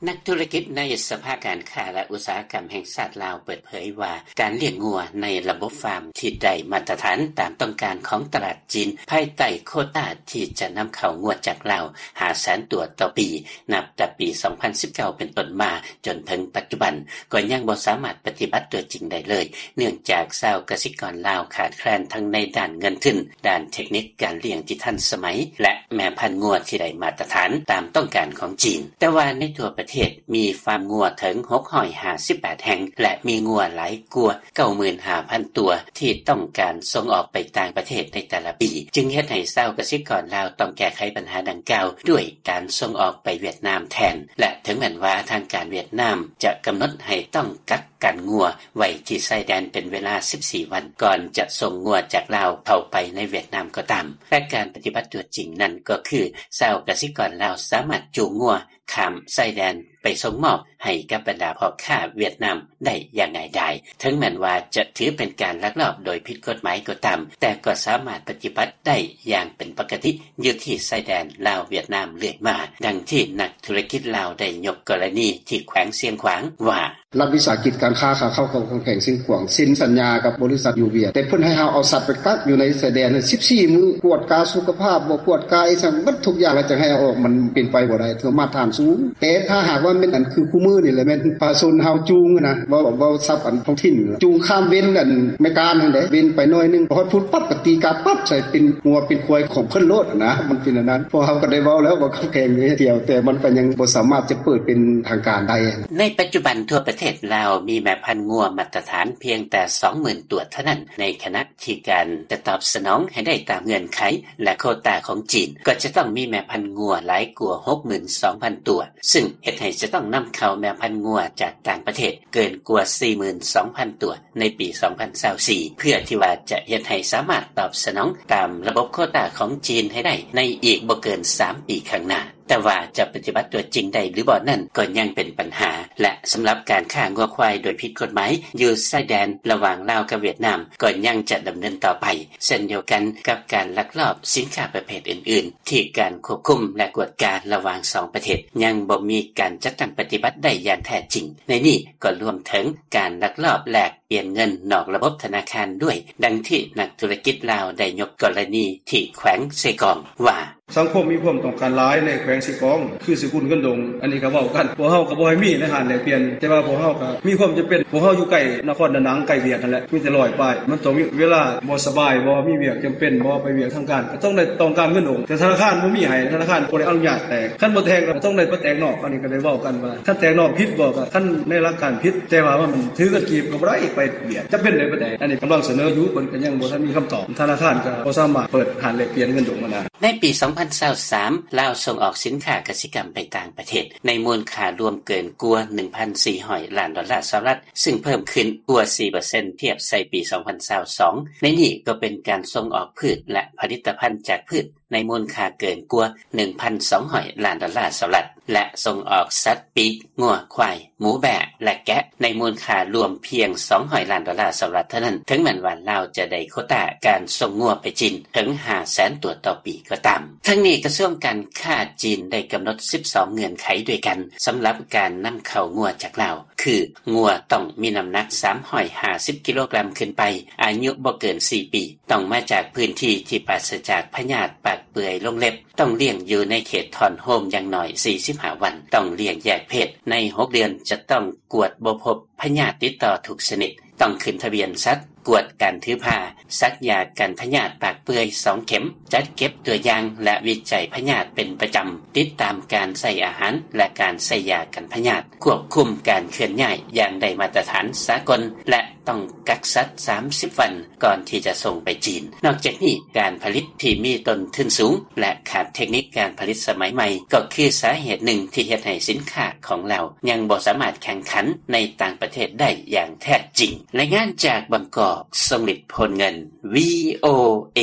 ນັກທຸລະກິດໃນສະພາການຄ້າ ແລະ ອຸດສາຫະກຳແຫ່ງຊາດລາວເປີດເຜີຍວ່າ ການລ້ຽງງົວໃນລະບົບຟາມທີ່ໄດ້ມາດຕະຖານຕາມຕ້ອງການຂອງຕະຫຼາດຈີນ ພາຍໃຕ້ໂຄຕ້າທີ່ຈະນຳເຂົ້າງົວຈາກລາວ ຫ້າແສນຕົວຕໍ່ປີ ນັບແຕ່ປີສອງພັນສິບເກົ້າເປັນຕົ້ນມາ ຈົນເຖິງປັດຈຸບັນ ກໍຍັງບໍ່ສາມາດປະຕິບັດຕົວຈິງໄດ້ເລີຍ, ເນື່ອງຈາກຊາວກະສິກອນລາວຂາດແຄລນທັງໃນດ້ານເງິນທຶນ, ດ້ານເທັກນິກການລ້ຽງທີ່ທັນສະໄໝ ແລະ ແມ່ພັນງົວທີ່ໄດ້ມາດຕະຖານຕາມຕ້ອງການຂອງຈີນ. ແຕ່ວ່າໃນທົ່ວປະເທດມີຟາມງົວເຖິງຫົກຮ້ອຍຫ້າສິບແປດແຫ່ງ ແລະ ມີງົວຫຼາຍກວ່າເກົ້າໝື່ນຫ້າພັນຕົວ ທີ່ຕ້ອງການສົ່ງອອກໄປຕ່າງປະເທດໃນແຕ່ລະປີ, ຈຶ່ງເຮັດໃຫ້ຊາວກະສິກອນລາວຕ້ອງແກ້ໄຂບັນຫາດັ່ງກ່າວດ້ວຍການສົ່ງອອກໄປຫວຽດນາມແທນ. ແລະ ເຖິງແມ່ນວ່າທາງການຫວຽດນາມຈະກຳນົດໃຫ້ຕ້ອງກັກກັນງົວໄວ້ທີ່ຊາຍແດນເປັນເວລາສິບສີ່ວັນ ກ່ອນຈະສົ່ງງົວຈາກລາວເຂົ້າໄປໃນຫວຽດນາມກໍຕາມ, ແຕ່ການປະຕິບັດຕົວຈິງນັ້ນກໍຄື ຊາວກະສິກອນລາວສາມາດຈູງງົວຂ້າມຊາຍແດນໄປສົ່ງມອບໃຫ້ກັບບັນດາພໍ່ຄ້າຫວຽດນາມໄດ້ຢ່າງງ່າຍດາຍ. ເຖິງແມ່ນວ່າຈະຖືເປັນການລັກລອບໂດຍຜິດກົດໝາຍກໍຕາມ, ແຕ່ກໍສາມາດປະຕິບັດໄດ້ຢ່າງເປັນປົກກະຕິຢູ່ທີ່ຊາຍແດນລາວ-ຫວຽດນາມເລື້ອຍມາ, ດັ່ງທີ່ນັກທຸລະກິດລາວໄດ້ຍົກກໍລະນີທີ່ແຂວງຊຽງຂວາງວ່າ ລັດວິສາຫະກິດການຄ້າຂາເຂົ້າຂອງແຂວງຊຽງຂວາງ ເຊັນສັນຍາກັບບໍລິສັດຢູ່ຫວຽດ ແຕ່ເພິ່ນໃຫ້ເຮົາເອົາສັດໄປກັກຢູ່ໃນຊາຍແດນສິບສີ່ມື້, ກວດກາສຸຂະພາບ, ບໍ່ກວດກາອີ່ຫຍັງ ເບິດທຸກຢ່າງ ແລ້ວຈັ່ງໃຫ້ເອົາອອກ, ມັນເປັນໄປບໍ່ໄດ້ ເທື່ອມາດຖານສູງ. ແຕ່ຖ້າຫາກວ່າແມ່ນອັນຄືຄູ່ມື້ນີ້ແຫຼະ ແມ່ນປະຊາຊົນເຮົາຈູງນະ, ເວົ້າ ເວົ້າສັບອັນທ້ອງຖິ່ນ ຈູງຂ້າມເວັນອັນແມ່ການຫັ້ນເດ້, ເວັນໄປໜ້ອຍໜຶ່ງ ຮອດພຸ້ນປັບ ກໍຕີກາປັບໃສ່ເປັນງົວເປັນຄວາຍຂອງເພິ່ນໂລດນະ, ມັນເປັນອັນນັ້ນ. ພວກເຮົາກໍໄດ້ເວົ້າແລ້ວວ່າກັບແຂວງເຮົາ ແຕ່ມັນກໍຍັງບໍ່ສາມາດຈະເປີດເປັນທາງການໄດ້. ໃນປັດຈຸບັນທົ່ວປະເທດລາວມີແມ່ພັນງົວມາດຕະຖານພຽງແຕ່ສອງໝື່ນຕົວເທົ່ານັ້ນ, ໃນຂະນະທີ່ການຈະຕອບສະໜອງໃຫ້ໄດ້ຕາມເງື່ອນໄຂ ແລະ ໂຄຕ້າຂອງຈີນ ກໍຈະຕ້ອງມີແມ່ພັນງົວຫຼາຍກວ່າຫົກໝື່ນສອງພັນຕົວ, ຊຶ່ງເຮັດໃຫ້ຈະຕ້ອງນຳເຂົ້າແມ່ພັນງົວຈາກຕ່າງປະເທດເກີນກວ່າສີ່ໝື່ນສອງພັນຕົວໃນປີສອງພັນຊາວສີ່ ເພື່ອທີ່ວ່າຈະເຮັດໃຫ້ສາມາດຕອບສະໜອງຕາມລະບົບໂຄຕ້າຂອງຈີນໃຫ້ໄດ້ໃນອີກບໍ່ເກີນສາມປີຂ້າງໜ້າ. ແຕ່ວ່າຈະປະຕິບັດຕົວຈິງໄດ້ຫຼືບໍ່ນັ້ນ ກໍຍັງເປັນບັນຫາ ແລະ ສຳລັບການຄ້າງົວຄວາຍໂດຍຜິດກົດໝາຍຢູ່ຊາຍແດນລະຫວ່າງລາວກັບຫວຽດນາມ ກໍຍັງຈະດຳເນີນຕໍ່ໄປ ເຊັ່ນດຽວກັນກັບການລັກລອບສິນຄ້າປະເພດອື່ນໆ ທີ່ການຄວບຄຸມ ແລະ ກວດກາລະຫວ່າງສອງປະເທດ ຍັງບໍ່ມີການຈັດຕັ້ງປະຕິບັດໄດ້ຢ່າງແທ້ຈິງ. ໃນນີ້ກໍລວມເຖິງການລັກລອບແລກປ່ຽນເງິນນອກລະບົບທະນາຄານດ້ວຍ, ດັ່ງທີ່ນັກທຸລະກິດລາວໄດ້ຍົກກໍລະນີທີ່ແຂວງເຊກອງວ່າ: ສັງຄົມມີຄວາມຕ້ອງການຫຼາຍໃນແຂວງເຊກອງ ຄືສະກຸນເງິນດົງ, ອັນນີ້ກໍເວົ້າກັນ ພວກເຮົາກໍບໍ່ໃຫ້ມີໃນຮ້ານແລກປ່ຽນ, ແຕ່ວ່າພວກເຮົາກໍມີຄວາມຈຳເປັນ, ພວກເຮົາຢູ່ໃກ້ນະຄອນດານັງ ໃກ້ຫວຽດຫັ້ນແຫຼະ, ມີແຕ່ຮ້ອຍປາຍ, ມັນຕ້ອງມີເວລາບໍ່ສະບາຍບໍ ມີວຽກຈຳເປັນບໍ ໄປວຽກທາງການ ກໍຕ້ອງໄດ້ ຕ້ອງການເງິນດົງ, ແຕ່ທະນາຄານບໍ່ມີໃຫ້, ທະນາຄານບໍ່ໄດ້ອະນຸຍາດແຕກ, ຄັນບໍ່ແຕກແລ້ວກໍຕ້ອງໄດ້ໄປແຕກນອກ, ອັນນີ້ກໍໄດ້ເວົ້າກັນວ່າ ຄັນແຕກນອກຜິດບໍ ກໍຄັນໃນຫຼັກການຜິດ, ແຕ່ວ່າມັນຖືເງິນກີບກໍບໍ່ໄດ້ໄປວຽດ, ຈຳເປັນໄດ້ປານໃດ, ອັນນີ້ກຳລັງສະເໜີຢູ່, ເພິ່ນກໍຍັງບໍ່ທັນມີຄຳຕອບ, ທະນາຄານກໍບໍ່ສາມາດເປີດຮ້ານແລກປ່ຽນເງິນດົງຫັ້ນນະ. ໃນປີສອງພັນຊາວສາມ ລາວສົ່ງອອກສິນຄ້າກະສິກຳໄປຕ່າງປະເທດ ໃນມູນຄ່າລວມເກີນກວ່າໜຶ່ງພັນສີ່ຮ້ອຍລ້ານດອນລາສະຫະລັດ, ຊຶ່ງເພີ່ມຂຶ້ນກວ່າສີ່ເປີເຊັນທຽບໃສ່ປີສອງພັນຊາວສອງ. ໃນນີ້ກໍເປັນການສົ່ງອອກພືດ ແລະ ຜະລິດຕະພັນຈາກພືດ ໃນມູນຄ່າເກີນກວ່າໜຶ່ງພັນສອງຮ້ອຍລ້ານດອນລາສະຫະລັດ ແລະ ສົ່ງອອກສັດປີກ, ງົວ, ຄວາຍ, ໝູ, ແບ້ ແລະ ແກະ ໃນມູນຄ່າລວມພຽງສອງຮ້ອຍລ້ານດອນລາສະຫະລັດເທົ່ານັ້ນ, ເຖິງແມ່ນວ່າລາວຈະໄດ້ໂຄຕ້າການສົ່ງງົວໄປຈີນເຖິງຫ້າແສນຕົວຕໍ່ປີກໍຕາມ. ທັງນີ້, ກະຊວງການຄ້າຈີນໄດ້ກຳນົດສິບສອງເງື່ອນໄຂດ້ວຍກັນ ສຳລັບການນຳເຂົ້າງົວຈາກລາວ, ຄື ງົວຕ້ອງມີນ້ຳໜັກສາມຮ້ອຍຫ້າສິບກິໂລກຣາມຂຶ້ນໄປ, ອາຍຸບໍ່ເກີນສີ່ປີ, ຕ້ອງມາຈາກພື້ນທີ່ທີ່ປາສະຈາກພະຍາດປາກເປື່ອຍລົງເລັບ, ຕ້ອງລ້ຽງຢູ່ໃນເຂດຖອນໂຮມຢ່າງໜ້ອຍສີ່ສິບຫ້າວັນ, ຕ້ອງລ້ຽງແຍກເພດ, ໃນຫົກເດືອນຈະຕ້ອງກວດບໍ່ພົບພະຍາດຕິດຕໍ່ທຸກຊະນິດ, ຕ້ອງຂຶ້ນທະບຽນສັດ, ກວດການຖືພາ, ສັກຢາກັນພະຍາດປາກເປື່ອຍສອງເຂັມ, ຈັດເກັບຕົວຢ່າງ ແລະ ວິໄຈພະຍາດເປັນປະຈຳ, ຕິດຕາມການໃສ່ອາຫານ ແລະ ການໃສ່ຢາກັນພະຍາດ, ຄວບຄຸມການເຄື່ອນຍ້າຍຢ່າງໄດ້ມາດຕະຖານສາກົນ ແລະ ຕ້ອງກັກສັດສາມສິບວັນ ກ່ອນທີ່ຈະສົ່ງໄປຈີນ. ນອກຈາກນີ້, ການຜະລິດທີ່ມີຕົ້ນທຶນສູງ ແລະ ຂາດເທັກນິກການຜະລິດສະໄໝໃໝ່ ກໍຄືສາເຫດໜຶ່ງທີ່ເຮັດໃຫ້ສິນຄ້າຂອງລາວຍັງບໍ່ສາມາດແຂ່ງຂັນໃນຕ່າງປະເທດໄດ້ຢ່າງແທ້ຈິງ. ລາຍງານຈາກບາງກອກ, ຊົງລິດ ໂພນເງິນ, ວີໂອເອ.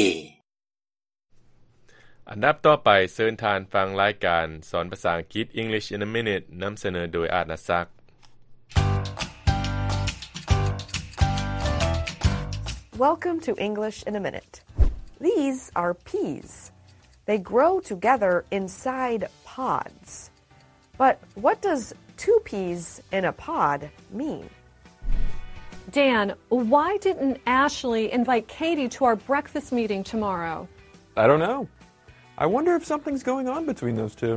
ອັນດັບຕໍ່ໄປ, ເຊີນທ່ານຟັງລາຍການສອນພາສາອັງກິດ English in a Minute ນຳສະເໜີໂດຍ ອາດນະສັກ. Welcome to English in a Minute. These are peas. They grow together inside pods. But what does two peas in a pod mean? Dan, why didn't Ashley invite Katie to our breakfast meeting tomorrow? I don't know. I wonder if something's going on between those two.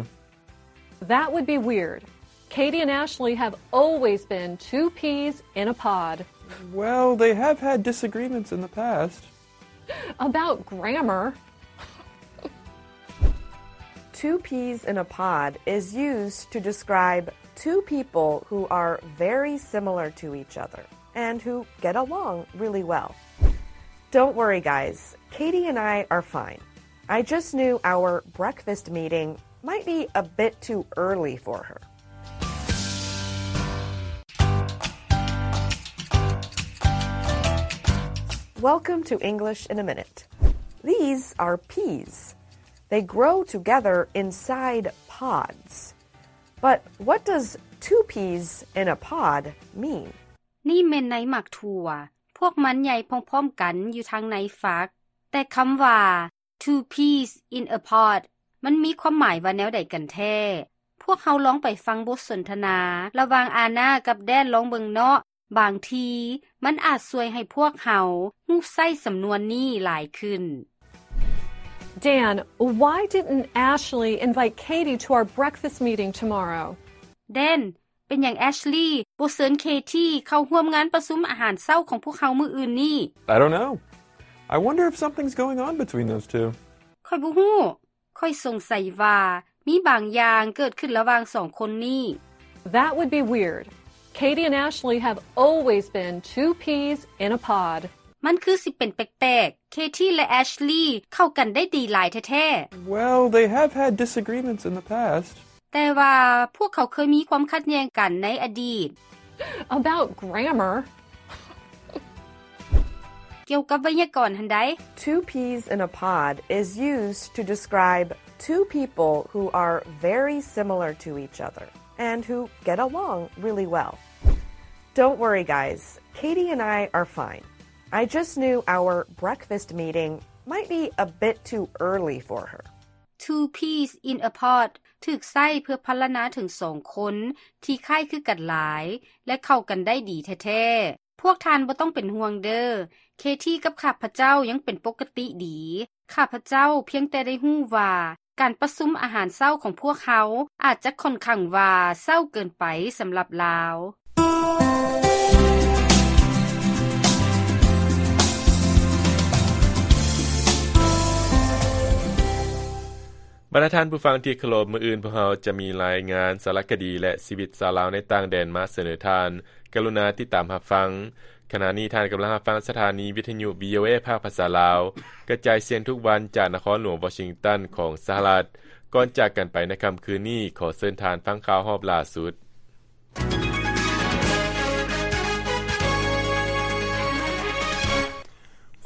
That would be weird. Katie and Ashley have always been two peas in a pod. Well, they have had disagreements in the past. About grammar. Two peas in a pod is used to describe two people who are very similar to each other and who get along really well. Don't worry, guys. Katie and I are fine. I just knew our breakfast meeting might be a bit too early for her. Welcome to English in a Minute. These are peas. They grow together inside pods. But what does two peas in a pod mean? ນີ້ແມ່ນໃນໝາກຖົ່ວ. ພວກມັນໃຫຍ່ພ້ອມໆກັນຢູ່ທາງໃນຝັກ. ແຕ່ຄຳວ່າ two peas in a pod ມັນມີຄວາມໝາຍວ່າແນວໃດກັນແທ້? ພວກເຮົາລອງໄປຟັງບົດສົນທະນາລະຫວ່າງອານາກັບແດນລອງເບິ່ງເນາະ. ບາງທີມັນອາດຊ່ວຍໃຫ້ພວກເຮົາຮູ້ໃຊ້ສຳນວນນີ້ຫຼາຍຂຶ້ນ. Dan, why didn't Ashley invite Katie to our breakfast meeting tomorrow? Dan, ເປັນຫຍັງແອັຊລີບໍ່ເຊີນເຄທີເຂົ້າຮ່ວມງານປະຊຸມອາຫານເຊົ້າຂອງພວກເຮົາມື້ອື່ນນີ້? I don't know. I wonder if something's going on between those two. ຂ້ອຍບໍ່ຮູ້. ຂ້ອຍສົງໄສວ່າມີບາງຢ່າງເກີດຂຶ້ນລະຫວ່າງສອງຄົນນີ້. That would be weird. Katie and Ashley have always been two peas in a pod. ມັນຄືຊິເປັນແປກໆ. ເຄທີ ແລະ ແອັຊລີເຂົ້າກັນໄດ້ດີຫຼາຍແທ້ໆ. Well, they have had disagreements in the past. ແຕ່ວ່າພວກເຂົາເຄີຍມີຄວາມຂັດແຍ່ງກັນໃນອະດີດ. About grammar. ກ່ຽວກັບໄວຍາກອນຫັ້ນໃດ໋. Two peas in a pod is used to describe Two people who are very similar to each other and who get along really well. Don't worry, guys. Katie and I are fine. I just knew our breakfast meeting might be a bit too early for her. Two peas in a pod ຖືກໃຊ້ເພື່ອພັນລະນາເຖິງສອງຄົນທີ່ຄ້າຍຄືກັນຫຼາຍ ແລະ ເຂົ້າກັນໄດ້ດີແທ້ໆ. ພວກທ່ານບໍ່ຕ້ອງເປັນຫ່ວງເດີ້. ເຄທີກັບຂ້າພະເຈົ້າຍັງເປັນປົກກະຕິດີ. ຂ້າພະເຈົ້າພຽງແຕ່ໄດ້ຮູ້ວ່າການປະຊຸມອາຫານເຊົ້າຂອງພວກເຮົາອາດຈະຂ້ອນຂ້າງວ່າເຊົ້າເກີນໄປສຳລັບລາວ. ບັນດາທ່ານຜູ້ຟັງທີ່ເຄົາລົບ, ມື້ອື່ນພວກເຮົາຈະມີລາຍງານສາລະຄະດີ ແລະ ຊີວິດຊາວລາວໃນຕ່າງແດນມາສະເໜີທ່ານ. ກະລຸນາຕິດຕາມຮັບຟັງ. ຂະນະນີ້ທ່ານກຳລັງຮັບຟັງສະຖານີວິທະຍຸ ວີໂອເອ ພາກພາສາລາວ ກະຈາຍສຽງທຸກວັນຈາກນະຄອນຫຼວງວໍຊິງຕັນຂອງສະຫະລັດ. ກ່ອນຈາກກັນໄປໃນຄ່ຳຄືນນີ້, ຂໍເຊີນທ່ານຟັງຂ່າວຮອບລ່າສຸດ.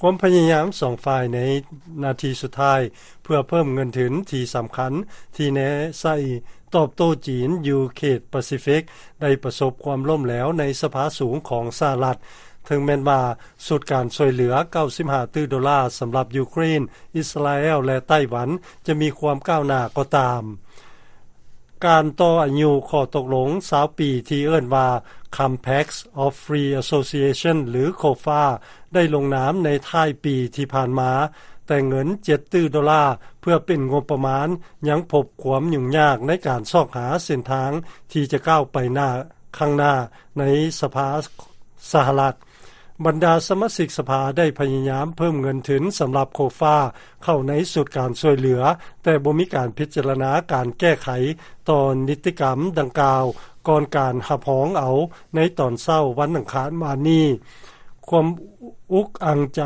ຄວາມພະຍາຍາມສອງຝ່າຍໃນນາທີສຸດທ້າຍ ເພື່ອເພີ່ມເງິນທຶນທີ່ສຳຄັນທີ່ແນໃສ່ຕອບໂຕ້ຈີນຢູ່ເຂດປາຊີຟິກ ໄດ້ປະສົບຄວາມລົ້ມແຫຼວໃນສະພາສູງຂອງສະຫະລັດ, ເຖິງແມ່ນວ່າຊຸດການຊ່ວຍເຫຼືອເກົ້າສິບຫ້າຕື້ໂດລາສຳລັບຢູເຄຣນ, ອິດສະຣາແອລ ແລະ ໄຕ້ຫວັນ ຈະມີຄວາມກ້າວໜ້າກໍຕາມ. ການຕໍ່ອາຍຸຂໍ້ຕົກລົງຊາວປີທີ່ເອີ້ນວ່າ Compact of Free Association ຫຼື COFA ໄດ້ລົງນາມໃນທ້າຍປີທີ່ຜ່ານມາ, ແຕ່ເງິນເຈັດຕື້ໂດລາເພື່ອເປັນງົບປະມານ ຍັງພົບຄວາມຫຍຸ້ງຍາກໃນການຊອກຫາເສັ້ນທາງທີ່ຈະກ້າວໄປໜ້າ ຂ້າງໜ້າໃນສະພາສະຫະລັດ. ບັນດາສະມາຊິກສະພາໄດ້ພະຍາຍາມເພີ່ມເງິນທຶນສຳລັບ COFA ເຂົ້າໃນຊຸດການຊ່ວຍເຫຼືອ, ແຕ່ບໍ່ມີການພິຈາລະນາການແກ້ໄຂຕໍ່ນິຕິກຳດັ່ງກ່າວ ກ່ອນການຮັບຮອງເອົາໃນຕອນເຊົ້າວັນອັງຄານວານນີ້. ຄວາມອຸກອັ່ງໃຈ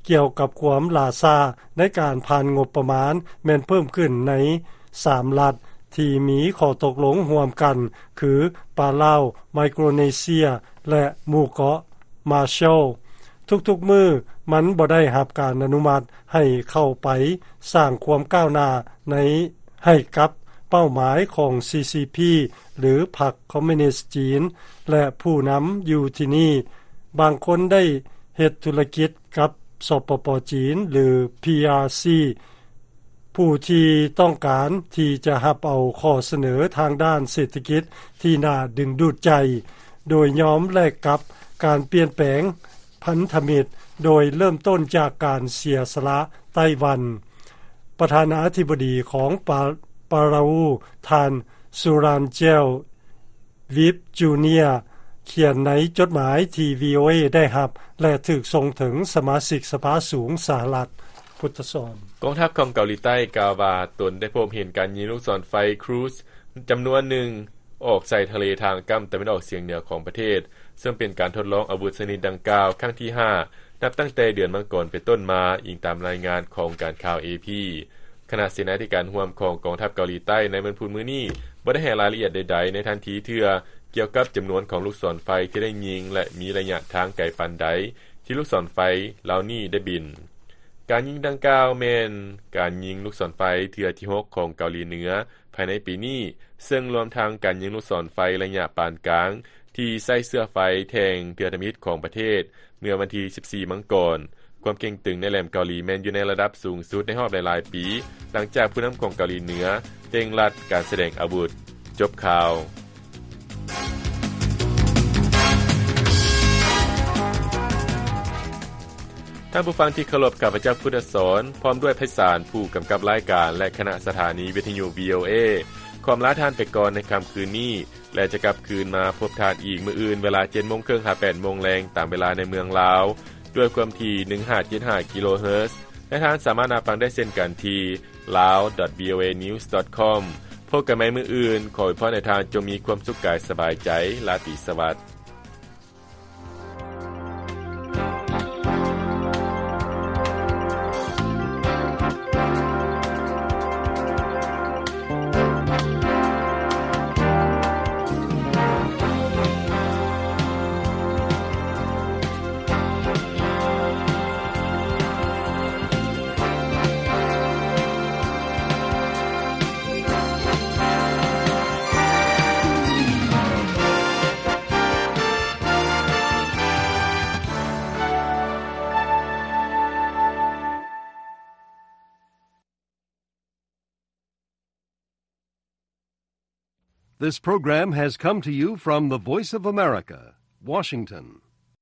ກ່ຽວກັບຄວາມຫຼ້າຊ້າໃນການຜ່ານງົບປະມານ ແມ່ນເພີ່ມຂຶ້ນໃນສາມລັດທີ່ມີຂໍ້ຕົກລົງຮ່ວມກັນ ຄື ປາລາວ, ໄມໂຄຣເນເຊຍ ແລະ ໝູ່ເກາະ Marshall. ທຸກໆມື້ມັນບໍ່ໄດ້ຮັບການອະນຸມັດໃຫ້ເຂົ້າໄປສ້າງຄວາມກ້າວໜ້າໃນ ໃຫ້ກັບເປົ້າໝາຍຂອງ CCP ຫຼື ພັກຄອມມູນິດຈີນ ແລະ ຜູ້ນຳຢູ່ທີ່ນີ້. ບາງຄົນໄດ້ເຮັດທຸລະກິດກັບ ສປປ ຈີນ ຫຼື PRC ຜູ້ທີ່ຕ້ອງການທີ່ຈະຮັບເອົາຂໍ້ສະເໜີທາງດ້ານເສດຖະກິດທີ່ໜ້າດຶງດູດໃຈ, ໂດຍຍອມແລກກັບການປ່ຽນແປງ ພັນທະມິດ ໂດຍເລີ່ມຕົ້ນຈາກການເສຍສະຫຼະໄຕ້ຫວັນ. ປະທານາທິບໍດີຂອງປາ ປາຣາອູ ທ່ານ ຊູຣານເຈວ ວິບ ຈູເນຍ ຂຽນໃນຈົດໝາຍທີ່ ວີໂອເອ ໄດ້ຮັບ ແລະ ຖືກສົ່ງເຖິງສະມາຊິກສະພາສູງສະຫະລັດ. ພຸດທະສອນ. ກອງທັບຂອງເກົາຫຼີໃຕ້ກ່າວວ່າ ຕົນໄດ້ພົບເຫັນການຍິງລູກສອນໄຟ Cruise ຈຳນວນໜຶ່ງ ອອກໃສ່ທະເລທາງກ້ຳຕາເວັນອອກສຽງເໜືອຂອງປະເທດ, ເຊິ່ງເປັນການທົດລອງອາວຸດຊະນິດດັ່ງກ່າວຄັ້ງທີຫ້າ ນັບຕັ້ງແຕ່ເດືອນມັງກອນເປັນຕົ້ນມາ, ອີງຕາມລາຍງານຂອງການຂ່າວ ເອພີ. ຄະນະເສນາທິການຮ່ວມຂອງກອງທັບເກົາຫຼີໃຕ້ໃນວັນພຸດມື້ນີ້ ບໍ່ໄດ້ໃຫ້ລາຍລະອຽດໃດໆໃນທັນທີເທື່ອ ກ່ຽວກັບຈຳນວນຂອງລູກສອນໄຟທີ່ໄດ້ຍິງ ແລະ ມີໄລຍະທາງໄກປານໃດ ທີ່ລູກສອນໄຟເຫຼົ່ານີ້ໄດ້ບິນ. ການຍິງດັ່ງກ່າວແມ່ນການຍິງລູກສອນໄຟເທື່ອທີຫົກຂອງເກົາຫຼີເໜືອ ພາຍໃນປີນີ້, ເຊິ່ງລວມທັງການຍິງລູກສອນໄຟໄລຍະປານກາງ ທີ່ໃຊ້ເຊື້ອໄຟແທ່ງເທື່ອທຳອິດຂອງປະເທດ ເມື່ອວັນທີສິບສີ່ ມັງກອນ. ຄວາມເຄັ່ງຕຶງໃນແຫຼມເກົາຫຼີແມ່ນຢູ່ໃນລະດັບສູງສຸດໃນຮອບຫຼາຍໆປີ, ຫຼັງຈາກຜູ້ນຳຂອງເກົາຫຼີເໜືອເລັ່ງລັດການສະແດງອາວຸດ. ຈົບຂ່າວ. ທ່ານຜູ້ຟັງທີ່ເຄົາລົບ, ຂ້າພະເຈົ້າ ພຸດທະສອນ ພ້ອມດ້ວຍໄພສານ ຜູ້ກຳກັບລາຍການ ແລະ ຄະນະສະຖານີວິທະຍຸ ວີໂອເອ ຂໍອຳລາທ່ານໄປກ່ອນໃນຄ່ຳຄືນນີ້ ແລະ ຈະກັບຄືນມາພົບທ່ານອີກມື້ອື່ນ ເວລາເຈັດໂມງເຄິ່ງຫາແປດໂມງແລງ ຕາມເວລາໃນເມືອງລາວ ດ້ວຍຄວາມຖີ່ ໜຶ່ງຫ້າເຈັດຫ້າ ກິໂລເຮີດ ແລະ ທ່ານສາມາດຮັບຟັງໄດ້ເຊັ່ນກັນທີ່ lao dot voanews dot com. ພົບກັນໃໝ່ມື້ອື່ນ, ຂໍອວຍພອນໃຫ້ທ່ານຈົ່ງມີຄວາມສຸກກາຍສະບາຍໃຈ. ລາຕີສະຫວັດ. This program has come to you from the Voice of America, Washington.